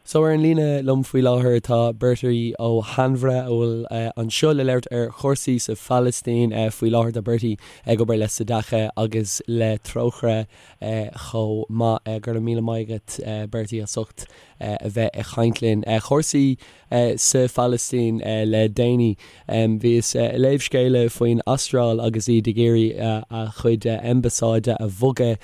So ar an líne liom faoi láthair tá Bertie Ó hAinmhire a bhfuil anseo le labhairt ar chúrsaí sa Phalaistín faoi láthair. Tá Bertie ag obair le Tzedakah agus le Trócaire chomh maith. Go raibh míle maith agat Bertie as ucht a bheith ag caint linn. Cúrsaí sa Phalaistín le déanaí. Bhíos ag léamh scéala faoin Astráil agus iad ag iarraidh a chuid ambasáide a bhogadh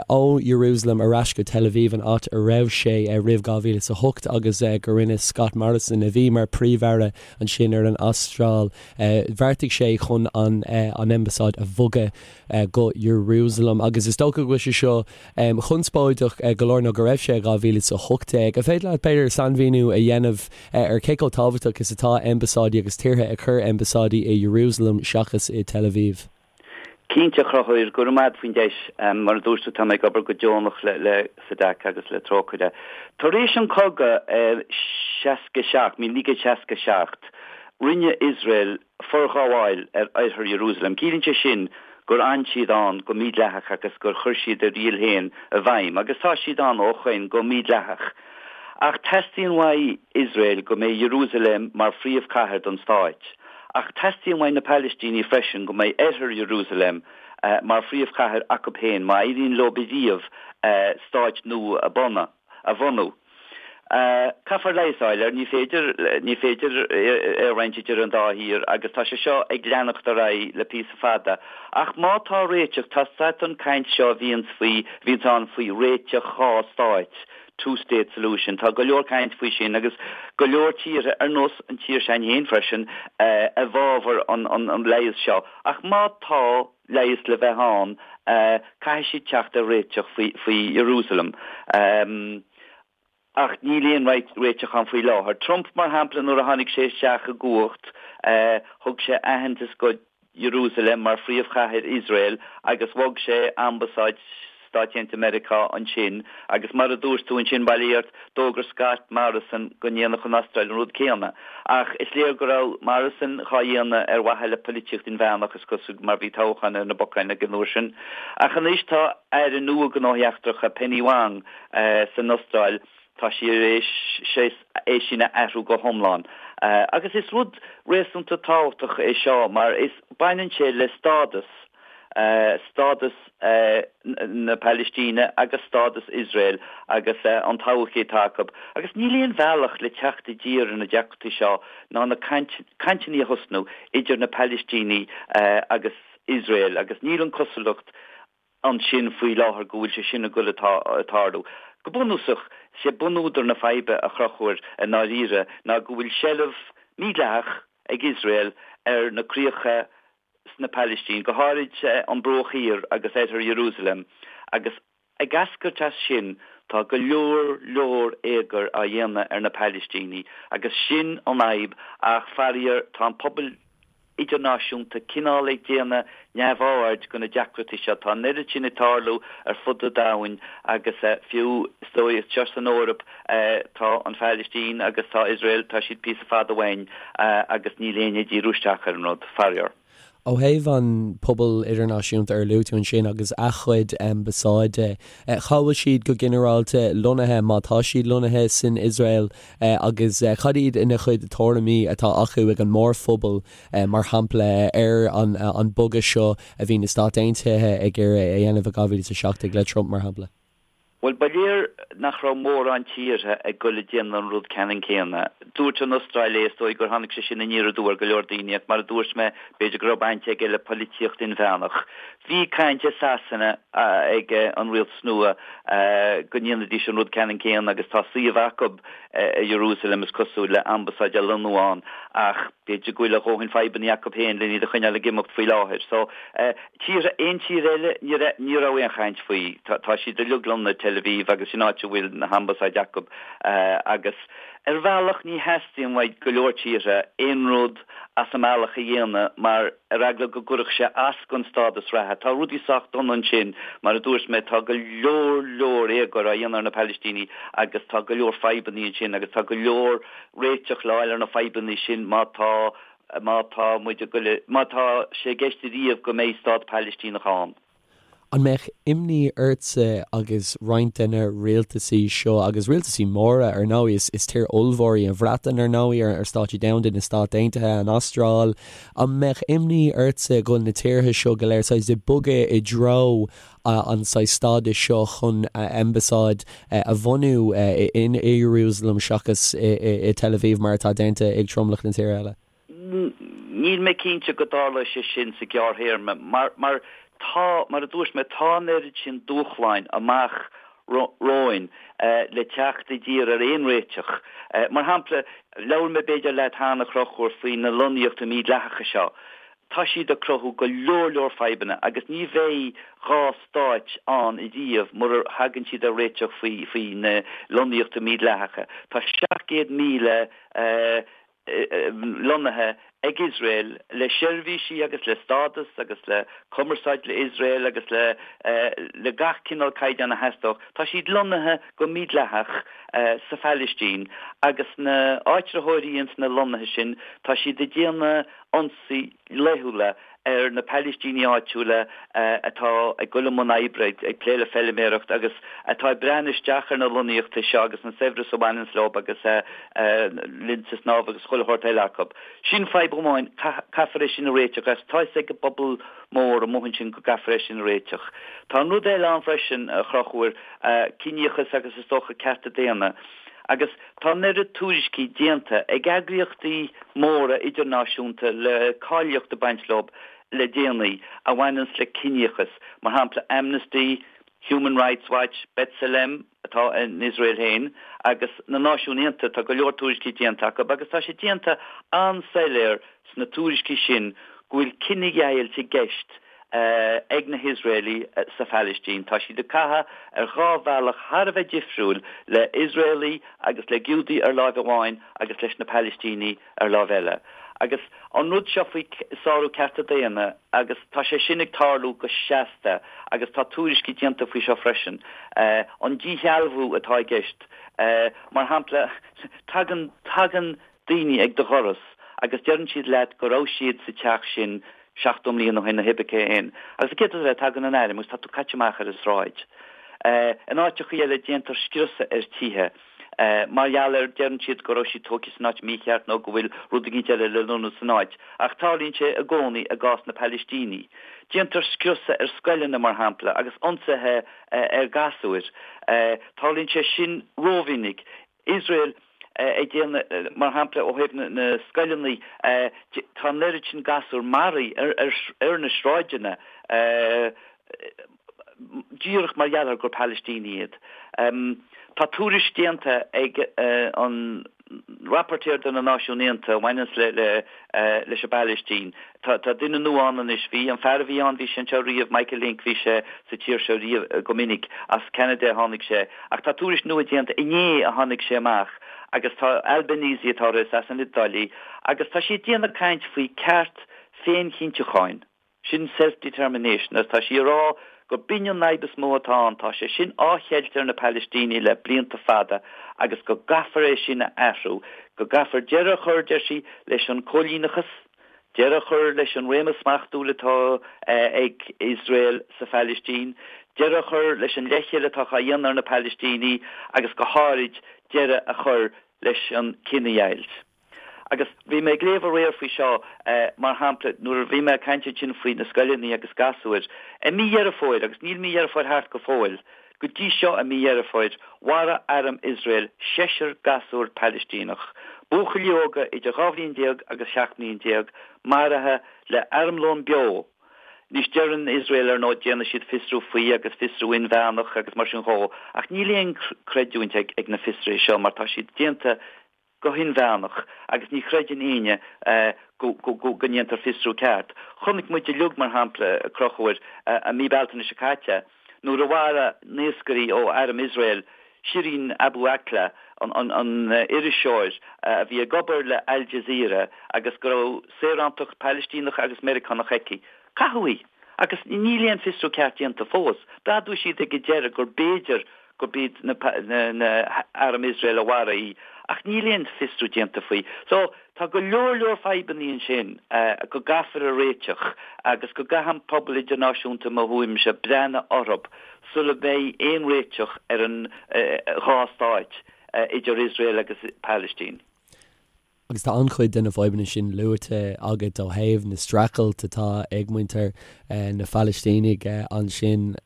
ó Jerusalem ar ais go Tel Aviv, an áit a raibh sé roimh 2008 agus go rinne Scott Morrison, a bhí mar Príomh-Aire ansin ar an Astráil, bheartaigh sé chun an ambasáid a bhogadh go Jerusalem. Agus is dócha go bhfuil sé seo conspóideach go leor, nó go raibh sé i 2018. An féidir leat, b'fhéidir, sainmhíniú a dhéanamh ar cé chomh tábhachtach is atá ambasáidí agus tíortha ag cur ambasáidí i Jerusalem seachas i Tel Aviv? Cinnte, a Chonchúir, go raibh maith agat faoin deis. Mar a dúirt tú, tá mé ag obair go deonach le Tzedakah agus le Trócaire. Tar éis an cogadh 67, 1967, rinne Iosrael forghabháil ar oirthear Iarúsailéim. Ciallaíonn sé sin gur fhan siad ann go mídhleathach agus gur chuir siad a riail féin i bhfeidhm, agus tá siad ann ó shoin go mídhleathach. Ach teastaíonn uaidh Iosrael go mbeidh Iarúsailéim mar phríomhchathair don stáit. Ach teastaíonn uaidh na Palaistínigh freisin go mbeidh oirthear Iarúsailéim mar phríomhchathair acu féin má éiríonn leo riamh stáit nua a bhunú. Caithfear leigheas a fháil air, ní féidir, ní féidir é a roinnt idir an dá thír agus tá sé seo ag leanacht ar aghaidh le píosa fada. Ach má tá réiteach, tá an caint seo a bhíonns faoi, a bhíonns ann faoi réiteach dhá stáit, two state solution, tá go leor caint faoi sin agus go leor tíortha, ar nós an tír s'againn féin freisin, i bhfabhar an, an leigheas seo. Ach má tá leigheas le bheith ann, caithfidh siad teacht ar réiteach faoi, faoi Jerusalem. Ach níl aon réiteach ann faoi láthair. Trump, mar shampla, nuair a tháinig sé isteach i gcumhacht, thug sé aitheantas go Jerusalem mar phríomhchathair Iosrael agus bhog sé ambasáid Stáit Aontaithe Meiriceá ansin agus mar a dúirt tú ansin, bail ó Dhia ort, d'fhógair Scott Morrison go ndéanfadh an Astráil an rud céanna. Ach is léir go raibh Morrison dhá dhéanamh ar mhaithe le poilitíocht inmheánach, is cosúil, mar bhí toghchán ar na bacáin ag an uair sin. Ach anois tá Aire nua Gnóthaí Eachtracha, Penny Wong, san Astráil, tá sí ar éis é sin a athrú go hiomlán. Agus is rud réasúnta tábhachtach é seo mar is baineann sé le stádas, stádas na Palaistíne agus stádas Iosrael agus an todhchaí atá acu. Agus níl aon bhealach le teacht i dtír ar na deacrachtaí seo ná na cainteanna a thosnú idir na Palaistínigh agus Iosrael agus níl an cosúlacht ansin faoi láthair go bhfuil sé sin ag dul ag tarlú. Go bunúsach, is é bunúdar na faidhbe, a Chonchúir, i ndáiríre, ná go bhfuil seilbh mídhleathach ag Iosrael ar na críocha sna Palaistín, go háirid an Bruach Thiar agus Oirthear Iarúsailéim, agus ag eascairt as sin tá go leor leor éagair á dhéanamh ar na Palaistínigh agus sin an fhadhb ach faraor tá an pobal idirnáisiúnta cineál ag déanamh neamhaird de na deacrachtaí seo. Tá an oiread sin ag tarlú ar fud an domhain agus fiú is dóigh anseo san Eoraip tá an Phalaistín agus tá Iosrael, tá siad píosa fada uainn agus níl éinne ag díriú isteach ar an rud, faraor. Ó thaobh an pobal idirnáisiúnta ar luaigh tú ansin agus a chuid ambasáide, cá bhfuil siad go ginearálta lonnaithe, má tá siad lonnaithe san Iosrael agus cad iad na chuid tuairimí atá acu ag an mórphobal, mar shampla, ar an bogadh seo a bhí na Stáit Aontaithe ag iarraidh a dhéanamh i 2017 le Trump, mar shampla? Bhuel, ba léir nach raibh mórán tíortha ag goil ag déanamh an rud ceannann céanna. Dúirt an Astráil é, is dóigh gur tháinig sé sin aniar aduaidh ar go leor daoine, ach mar a dúirt mé, b'fhéidir go raibh baint aige le poilitíocht inmheánach. Bhí caint i Sasana ag an rialtas nua go ndéanfaidís an rud ceannann céanna agus tá suíomh acu i Jerusalem, is cosúil, le ambasáid a lonnú ann ach b'fhéidir go bhfuil a dhóthain fadhbanna acu féin len iad a choinneáil ag imeacht faoi láthair. So. Tíortha, aon tír eile, ní raibh, ní raibh aon chaint faoi. Tá, tá siad uilig lonnaithe i Tel Aviv agus sin áit a bhfuil na hambasáid acu agus ar bhealach ní theastaíonn uaidh go leor tíortha aon rud as an mbealach a dhéanamh mar ar eagla go gcuirfeadh sé as don stádas reatha. Tá rudaí sách dona ansin, mar a dúirt mé, tá go leor leor éagóir á dhéanamh ar na Palaistínigh agus tá go leor fadhbanna ansin agus tá go leor réiteach le fháil ar na fadhbanna sin má tá má tá muid ag goil, má tá sé i gceist ariamh go mbeidh stát Palaistíneach ann. An mbeadh imní ortsa agus roinnt de na rialtasaí seo, agus rialtasaí móra ar ndóigh, is is tír ollmhór í an Bhreatain ar ndóigh, ar stáitsí domhanda, na Stáit Aontaithe, an Astráil, an mbeadh imní ortsa go bhfuil na tíortha seo go léir saghas ag bogadh i dtreo an saghas stádais seo chun ambasáid a bhunú in Ierúsalem seachas i Tel Aviv mar atá déanta ag tromlach na tíortha eile? Níl mé cinnte go dtarlóidh sé sin sa ghearrthéarma mar, mar tá, mar a dúirt mé, tá an oiread sin dúshláin amach romhainn le teacht i dtír ar aon réiteach. Mar shampla, labhair mé b'fhéidir leat cheana, a Chonchúir, faoi na lonnaíochtaí mídhleathacha seo. Tá siad ag cruthú go leor leor fadhbanna agus ní bheidh dhá stáit ann ariamh murar thagann siad ar réiteach faoi, faoi na lonnaíochtaí mídhleathacha. Tá 700,000 lonnaithe ag Iosrael le seirbhísí agus le stádas agus le cumarsáid le Iosrael agus le le gach cineál caighdeán a theastódh. Tá siad lonnaithe go mídhleathach sa Phalaistín agus na áitritheoirí ins na lonnaithe sin tá siad ag déanamh ionsaí laethúla ar na Palaistínigh áitiúla atá ag dul i mbun oibre, ag plé le feilméaracht agus atá ag breathnú isteach ar na lonnaíochtaí seo agus an saibhreas a bhaineanns leo agus linnte snámha agus chuile shórt eile acu. Sin fadhb amháin, caithfear é sin a réiteach agus tá fhios ag an bpobal mór amuigh ansin go gcaithfear é sin a réiteach. Tá an rud eile ann freisin, a Chonchúir, ciníochas agus is dócha cearta daonna. Agus tá an oiread tuairiscí déanta ag eagraíochtaí móra idirnáisiúnta le cáilíocht ag baint leo le déanaí a bhaineanns le ciníochas, mar shampla Amnesty, Human Rights Watch, B'Tselem, atá in Iosrael féin, agus na Náisiúin Aontaithe, tá go leor tuairiscí déanta acu agus tá sé déanta an-soiléir sna tuairiscí sin go bhfuil cinedheighilt i gceist ag na hIosraelaigh sa Phalaistín. Tá siad ag caitheamh ar dhá bhealach thar a bheith difriúil, le hIosraelaigh agus le Giúdaigh ar láimh amháin agus leis na Palaistínigh ar láimh eile. Agus an rud seo faoi sárú cearta daonna, agus tá sé sin ag tarlú go seasta agus tá tuairiscí déanta faoi seo freisin, an díshealbhú atá i gceist, mar shampla, tagann, tagann daoine ag do dhoras agus deireann siad leat go raibh siad sa teach sin 70 mbliana ó shin nó pé cé aon. Agus an chéad rud eile, tagann an airm agus tá tú caite amach ar an sráid. In áiteachaí eile déantar scriosadh ar tithe mar gheall ar, deireann siad go raibh siad tógtha san áit mícheart nó go bhfuil rud eicínt eile le lonnú san áit. Ach tarlaíonn sé i gcónaí i gcás na Palaistínigh. Déantar scriosadh ar scoileanna, mar shampla, agus ionsaithe ar ghasúir. Tarlaíonn sé sin rómhinic. Iosrael ag déanamh, mar shampla, ó thaobh na scoileanna, tá an oiread sin gasúr maraithe ar na sráideanna díreach mar gheall ar gur Palaistínigh iad. Tá tuairisc déanta ag an Rapporteur de na Náisiúin Aontaithe a bhaineanns le leis an bPalaistín. Tá duine nua ann anois. Bhí an fear a bhí ann, bhí sé anseo riamh, Michael Lynk, bhí sé sa tír seo riamh go minic. As Ceanada a tháinig sé. Ach tá tuairisc nua déanta, inné a tháinig sé amach, agus tá Albanese atá uirthi, is as an Iodáil í, agus tá sí ag déanamh caint faoi ceart féinchinntiúcháin. Sin self-determination agus tá sí ag rá gur b'in an fhadhb is mó atá ann, tá sé sin á cheilt ar na Palaistínigh le blianta fada agus go gcaithfear é sin a athrú, go gcaithfear deireadh a chur, deir sí, leis an cóilíneachas, deireadh a chur leis an réimeas smachtúil atá ag Iosrael sa Phalaistín, deireadh a chur leis an leithcheal atá á dhéanamh ar na Palaistínigh agus go háirid deireadh a chur leis an cinedheighilt. Agus bhí mé ag léamh aréir faoi seo, mar shampla, nuair a bhí mé ag caint ansin faoi na scoileanna agus gasúir. I mí Dheireadh Fómhair, agus níl mí Dheireadh Fómhair thart go fóill, go dtí seo i mí Dheireadh Fómhair, mharaigh arm Iosrael seisear gasúr Palaistíneach, buachaillí óga idir 12 bhliain agus 17 mbliain, maraithe le armlón beo. Anois, deireann Iosrael, ar ndóigh, déanfaidh siad fiosrú faoi agus fiosrú inmheánach agus mar sin dhó, ach níl aon creidiúint ag na fiosruithe seo mar tá siad déanta go hinmheánach agus ní chreideann éinne go ndéantar fiosrú ceart. Chonaic muid uilig, mar shampla, a Chonchúir, i mí Bealtaine seo caite, nuair a mharaigh naoscairí ó arm Iosrael Shireen Abu Akleh, an iriseoir a bhí ag obair le Al Jazeera agus go raibh saorántacht Palaistíneach agus Meiriceánach aici. Caitheadh í! Agus níl aon fiosrú ceart déanta fós. D'admhaigh siad ag an deireadh gur b'fhéidir. gurb iad na arm Iosrael a mharaigh í ach níl aon fiosrú déanta faoi. So tá go leor leor fadhbannaí ansin go gcaithfear a réiteach agus go gcaithfidh an pobal idirnáisiúnta i mo thuairimse breathnú orthu sula mbeidh aon réiteach ar an dhá stáit idir Iosrael agus Palaistín. Agus tá an-chuid de na fadhbanna sin luaite agat ó thaobh na streachailt atá ag muintir na Phalaistínigh ansin.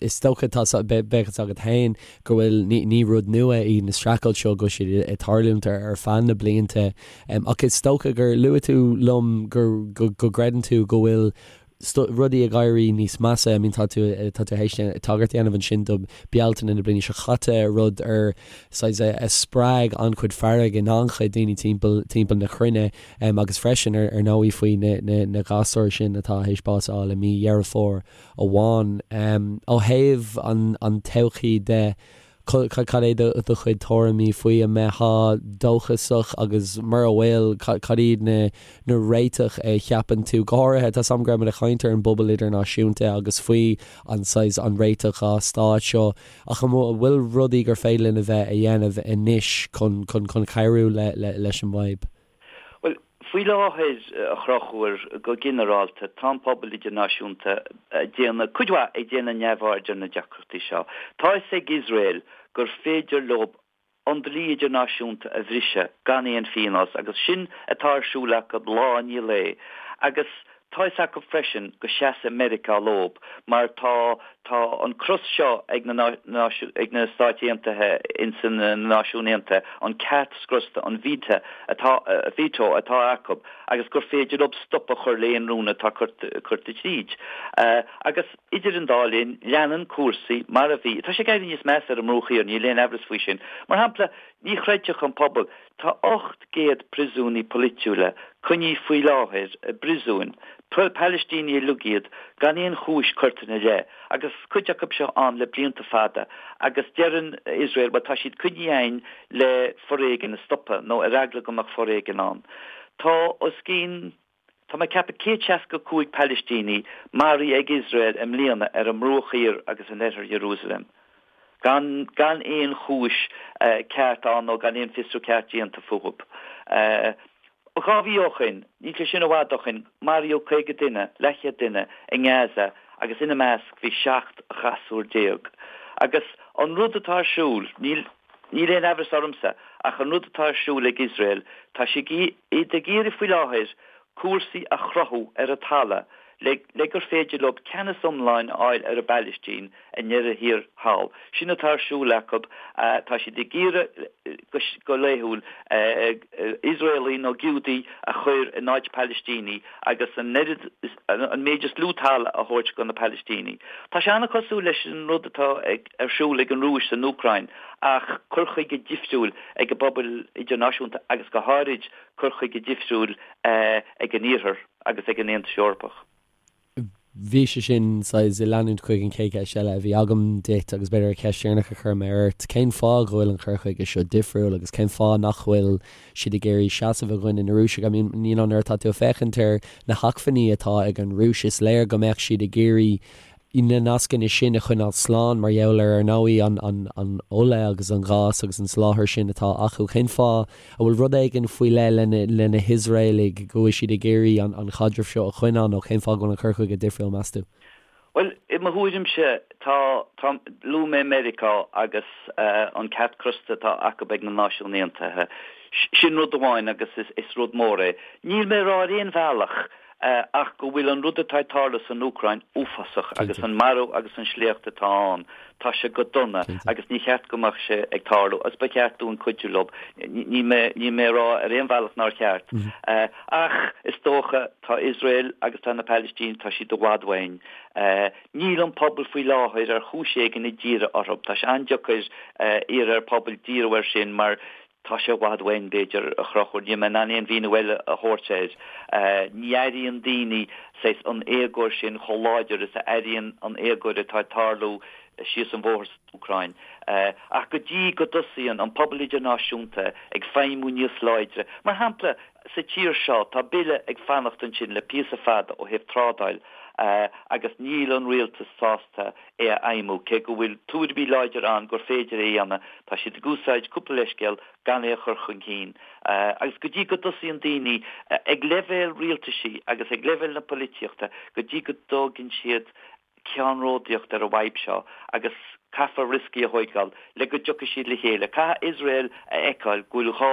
Is dócha, tá, bheadh fhios agat féin go bhfuil, ní rud nua í na streachailt seo, go bhfuil siad ag tarlúint ar feadh na blianta. Ach is dócha gur luaigh tú liom go gcreideann tú go bhfuil rudaí ag éirí níos measa. I mean tá tú tá tú théis tagairt a dhéanamh ansin do Bealtaine na bliana seo chaite, rud ar saghas a spreag an-chuid fearg in an-chuid daoine timpeall timpeall na cruinne agus freisin ar ar ndóigh faoi na na na gasúir sin atá théis bás a fháil i mí Dheireadh Fómhair amháin. Ó thaobh an an todhchaí de, Cad é do chuid tuairimí faoi? An mbeifeá dóchasach agus mura bhfuil, cad iad na réiteach a cheapann tú? Go háirithe, tá 's agam go raibh muid ag caint ar an bpobal idirnáisiúnta agus faoi an saghas, an réiteach dhá stát seo, ach an bhfuil rudaí gur féidir linn a bheith a dhéanamh anois chun chun cabhrú leis an bhfadhb? Bhuel, faoi láthair, a Chonchúir, go ginearálta, tá an pobal idirnáisiúnta ag déanamh, cuid mhaith, ag déanamh neamhaird ar na deacrachtaí seo. Tá fhios ag Iosrael gur féidir leo an dlí idirnáisiúnta a bhriseadh gan aon phionós agus sin atá ar siúl acu lá i ndiaidh lae. Agus tá fhios acu freisin go seasfaidh Meiriceá leob mar tá tá an cros seo ag na ag na Stáit Aontaithe ins na Náisiúin Aontaithe, an ceart scriosta, an veto atá veto atá acu agus gur féidir leob stop a chur le aon rún atá curtha tríd. Agus idir an dá linn, leanann cúrsaí mar a bhí. Tá sé ag éirí níos measa ar an mBruach Thiar, níl aon amhras faoi sin. Mar shampla, ní chreidfeadh an pobal, Tá 800 príosúnaí polaitiúla coinnithe faoi láthair i bpríosúin, Palaistínigh uilig iad, gan aon chúis curtha ina leith, agus cuid acu seo ann le blianta fada, agus deireann Iosrael, bhuel tá siad coinnithe againn le foréigean a stopadh, nó ar eagla go mbeadh foréigean ann. Tá os cionn. Tá mé ag ceapadh 165 Palaistíní maraithe ag Iosrael i mbliana ar an mBruach Thiar agus in oirthear Iarúsailéim, gan gan aon chúis ceart ann nó gan aon fiosrú ceart déanta fúthu. 2 mhí ó shoin, níl sé sin i bhfad ó shoin, maraíodh 50 duine, leathchéad duine, i nGaza agus ina measc bhí 17 ghasúr. Agus an rud atá ar siúl, níl. Níl aon amhras ormsa ach an rud atá ar siúl ag Iosrael, tá siad ag iarraidh faoi láthair cúrsaí a chruthú ar an talamh le le gur féidir leo ceannas iomlán a fháil ar an bPalaistín i ndeireadh thiar thall. Sin atá ar siúl acu. Tá siad ag iarraidh go laethúil Iosraelaigh nó Giúdaigh a chur in áit Palaistínigh agus an oiread, an méid is lú talamh a thabhairt do na Palaistínigh. Tá sé an-chosúil leis an rud atá ar siúl ag an Rúis san Úcráin ach cur chuige difriúil ag an bpobal idirnáisiúnta agus go háirid cur chuige difriúil ag an Iarthar agus ag an Aontas Eorpach. Bhí sé sin saghas ag leanúint chuig an chéad cheist eile a bhí agam duit agus b'fhéidir an cheist dheireanach a chuir mé ort, cén fáth go bhfuil an cur chuige seo difriúil agus cén fáth nach bhfuil siad ag iarraidh seasamh i gcoinne na Rúise? I mean, you know, nuair atá tú ag féachaint ar na hacmhainní atá ag an Rúis, is léir go mbeadh siad ag iarraidh na nascanna sin a choinneáil slán mar gheall ar, ar ndóigh, an ola agus an gás agus an soláthar sin atá acu. Cén fáth a bhfuil rud éigin faoi leith le na hIosraelaigh go bhfuil siad ag iarraidh an chaidreamh seo a choinneáil nó cén fáth go bhfuil an cur chuige difriúil, meas tú? Bhuel, i mo thuairimse, tá, tá, luaigh mé Meiriceá agus an ceart crosta atá acu ag na Náisiúin Aontaithe. Sin rud amháin agus is rud mór é. Níl mé ag rá ar aon bhealach ach go bhfuil an rud atá ag tarlú san Úcráin uafásach agus an marú agus an sléacht atá ann, tá sé go dona agus ní cheart go mbeadh sé ag tarlú agus ba cheart dúinn cuidiú leo. Níl mé, níl mé ag rá ar aon bhealach nár cheart. Ach is dócha, tá Iosrael agus tá na Palaistínigh, tá siad i bhfad uainn. Níl an pobal faoi láthair ar chúis éigin ag díriú orthu. Tá sé an-deacair iarraidh ar phobal díriú air sin mar Tá sé i bhfad uainn, b'fhéidir, a Chonchúir. Níl mé in ann aon mhíniú eile a thabhairt air. Ní airíonn daoine saghas an éagóir sin chomh láidir is a airíonn an éagóir atá ag tarlú síos an bhóthar san Úcráin. Ach go dtí go dtosaíonn an pobal idirnáisiúnta ag feidhmiú níos láidre, mar shampla, sa tír seo, tá bille ag fanacht ansin le píosa fada ó thaobh trádáil. Agus níl an rialtas sásta é a fheidhmiú, cé go bhfuil tuairimí láidir ann gur féidir é a dhéanamh. Tá siad ag úsáid cúpla leithscéal gan é a chur chun cinn. Agus go dtí go dtosaíonn daoine, ag leibhéal rialtaisí agus ag leibhéal na polaitíochta, go dtí go dtógann siad ceannródaíocht ar an bhfadhb seo agus caithfear rioscaí a thóigeáil le go dtiocfaidh siad le chéile. Caithfidh Iosrael a fheiceáil go bhfuil gá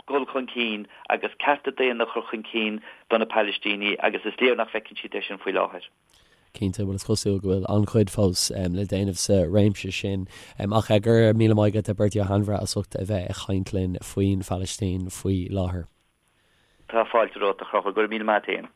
dul chun cinn agus cearta daonna a chur chun cinn do na Palaistínigh agus is léir nach bhfeiceann siad é sin faoi láthair. Cinnte, bhuel is cosúil go bhfuil an-chuid fós le déanamh sa réimse sin. Ach go raibh míle maith agat a Bertie Ó hAinmhire as ucht a bheith ag caint linn faoin Phalaistín faoi láthair. Tá fáilte romhat a Chonchúir, go raibh míle maith a't fhéin.